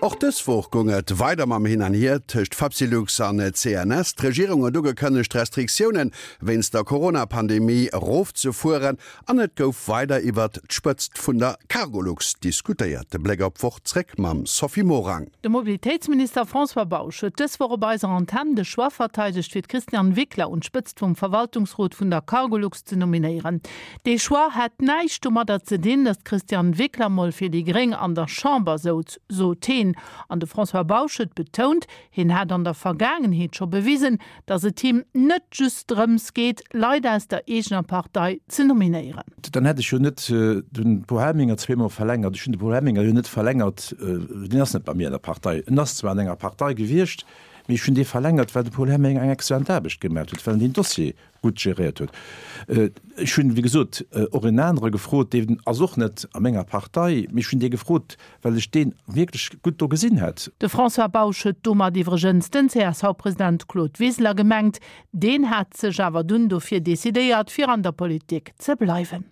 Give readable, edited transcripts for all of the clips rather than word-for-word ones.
Och dës Woch goung et weider mam Hin an Hier tëscht Fapsylux an CNS. D'Regierung huet ugekënnegt, d'Restriktioune wéinst der Corona-Pandemie erofzefueren an et gouf weider iwwert d'Spëtzt vun der Cargolux diskutéiert. De Bléck op d'Woch zréck mam Sophie Morang. De Mobilitéitsminister François Bausch huet dës Woch op eiser Antenn de Choix verteidegt, fir d'Christiane Wickler un d'Spëtzt vum Verwaltungsrot vun der Cargolux ze nominéieren. Dee Choix hätt näischt domadder ze dinn, datt d'Christiane Wickler mol fir déi Gréng an der Chamber souz, sot heen. An de François Bausch huet betount, hien hätt an der Vergaangenheet scho bewisen, datt et him net just drëms geet, Leit aus der eegener Partei ze nominéieren. Dann hätt ech jo net de Paul Helminger zweemol verlängert. Ech hunn de Paul Helminger jo net verlängert, deen ass net bei mir an der Partei. En ass zwar an enger Partei gewiescht, mee ech hunn dee verlängert, well de Paul Helminger eng exzellent Aarbecht gemaach huet, well en deen Dossier gutt geréiert huet. Ech hunn, wéi gesot, och en anere gefrot, deen ass och net a menger Partei, mee ech hunn dee gefrot, well ech dee wierklech gutt do gesinn hätt. De François Bausch huet domat iwwregens den CSV-President Claude Wiseler gemengt. Deen hat sech awer dunn dofir decidéiert, fir an der Politik ze bleiwen.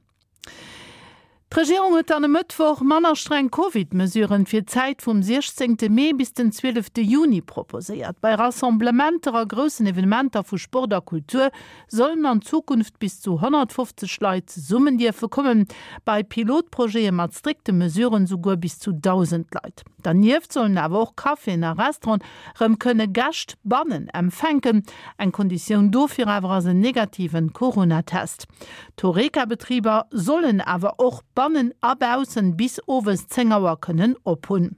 D'Regierung huet dann e Mëttwoch manner streng Covid-Mesuren fir d'Zäit vum 16 Mee bis den 12 Juni proposéiert. Bei Rassemblementer a groussen Evenementer vu Sport a Kultur sollen an Zukunft bis zu 150 Leit zesummen dierfe kommen, bei Pilotprojete mat strikte Mesuren souguer bis zu 1.000 Leit. Dernieft sollen awer och Caféen a Restauranten rëm kënne Gäscht bannen empfänken. Eng Konditioun dofir awer ass en negativen Corona-Test. D'Horeca-Betriber sollen awer och bannen a baussen bis owes 10 Auer kënnen op hunn.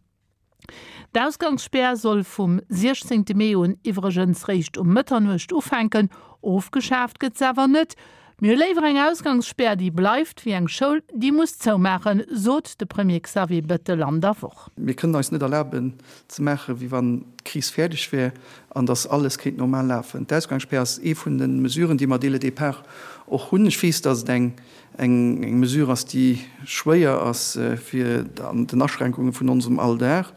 D'Ausgangsspär soll vum 16 Mee un iwwregens réischt um Mëtternuecht ufänken. Ofgeschaaft gëtt se awer net. Mir hu léiwer eng Ausgangsspär, déi bleift, wéi eng Schoul, déi muss zoumaachen, sot de Premier Xavier Bettel an der Woch. Mir kënnen eis net erlaben, ze maachen, wéi wann d'Kris fäerdeg wär an datt alles kéint normal lafen. D'Ausgangsspär ass ee vun de Mesuren, déi mer dès le départ och hunn. Ech weess, datt et eng eng Mesure ass, déi schwéier ass fir an den Aschränkunge vun onsem Alldag,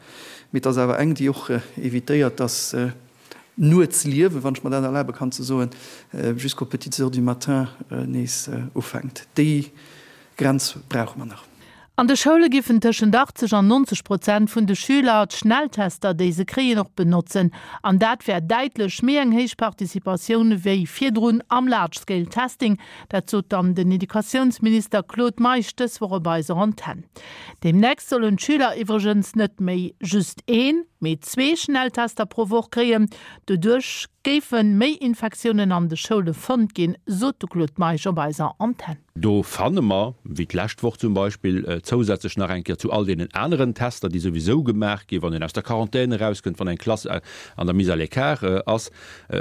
mee et ass awer eng, déi och évitéiert, datt d'Nuetsliewen, wann ech mer dat erlabe kann ze soen, jusqu'aux petites heures du matin nees ufänkt. Déi Grenz brauche mer nach. An de Schoule giffen tëschent 80 an 90 Prozent vun de Schüler d'Schnelltester, déi se kréien, och benotzen. An dat wär däitlech méi eng héich Participatioun wéi virdrun am Large Scale Testing. Dat sot dann den Educatiounsminister Claude Meisch dës Woch op eiser Antenn. Deemnächst sollen d'Schüler iwwregens net méi just een, mee zwee Schnelltester pro Woch kréien. Doduerch géife méi Infektiounen an de Schoule fonnt ginn, sot de Claude Meisch op eiser Antenn. Do fanne mer, wéi d'lescht Woch zum Beispill, zousätzlech nach eng Kéier zu all deenen aneren Tester, déi souwisou gemaach ginn, wann een aus der Quarantän erauskënnt, wann eng Klass an der Mise à l'écart ass,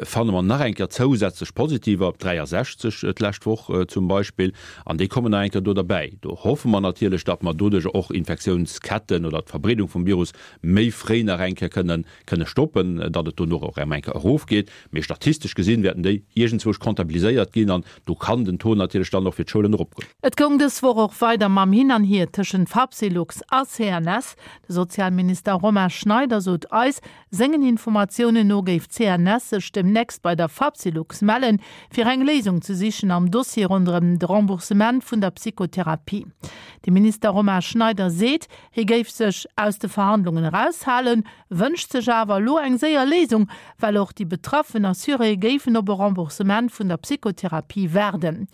fanne mer nach eng Kéier zousätzlech Positiver, 63 d'lescht Woch zum Beispill, an déi kommen nach eng Kéier do derbäi. Do hoffe mer natierlech, datt mer doduerch och Infektiounsketten oder d'Verbreedung vum Virus méi fréi nach eng Kéier kënnen kënne stoppen, datt et dono och erëm eng Kéier erofgeet. Mee statistesch gesinn wäerten déi iergendzwousch comptabiliséiert ginn an do kann den Taux natierlech dann och fir d'Schoulen eropgoen. Et goung dës Woch och weider mam Hin an Hier tëschent Fapsylux a CNS. De Sozialminister Romain Schneider sot eis, sengen Informatiounen no géif d'CNS sech demnächst bei der Fapsylux mellen, fir eng Léisung ze sichen am Dossier ronderëm de Remboursement vun der Psychotherapie. De Minister Romain Schneider seet, hie géif sech aus de Verhandlungen eraushalen, wënscht sech awer elo eng séier Léisung, well och déi betraffen Assuréë géifen op e Remboursement vun der Psychotherapie waarden.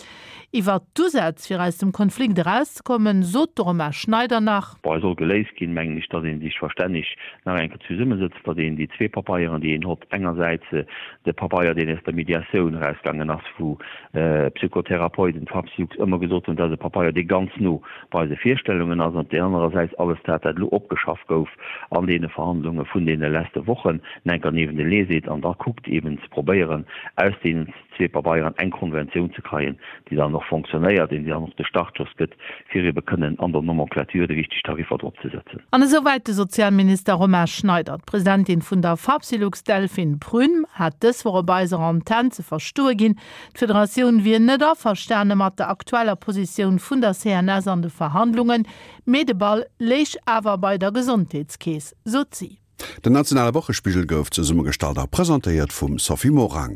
Iwwert d'Usätz, fir aus dem Konflikt erauszekommen, sot de Romain Schneider nach. Bon, et soll geléist ginn, mengen ech, datt ee sech verstänneg nach eng Kéier zesummesëtzt, datt een déi zwee Papeieren, déi een hott, engersäits de Papeier, deen aus der Mediatioun erausgaangen ass, wou d'Psychotherapeuten, d'Fapsylux ëmmer gesot hunn, dat ass e Papeier, dee ganz no bei eise Virstellungen ass, an op där anerer Säit alles dat, dat elo opgeschafft gouf an deene Verhandlunge vun deene leste Wochen, enker niewentelee seet an da kuckt eben ze probéieren, aus deenen zwee Pabeieren eng Konventioun ze kreien, déi dann och fonctionnéiert, déi dann och de Startschoss gëtt, fir ebe kënnen an der Nomenclature déi richteg Tariffer drop ze setzen. An esouwäit de Sozialminister Romain Schneider. D'Presidentin vun der Fapsylux, Delphine Prüm, hat dës Woch op eiser Antenn ze verstoe ginn, D'Federatioun wier net averstane mat der aktueller Positioun vun der CNS an de Verhandlungen, mee de Ball léich awer bei der Gesondheetskeess, sot si. Den nationale Wochespigel gouf zesummegestallt a presentéiert vum Sophie Morang.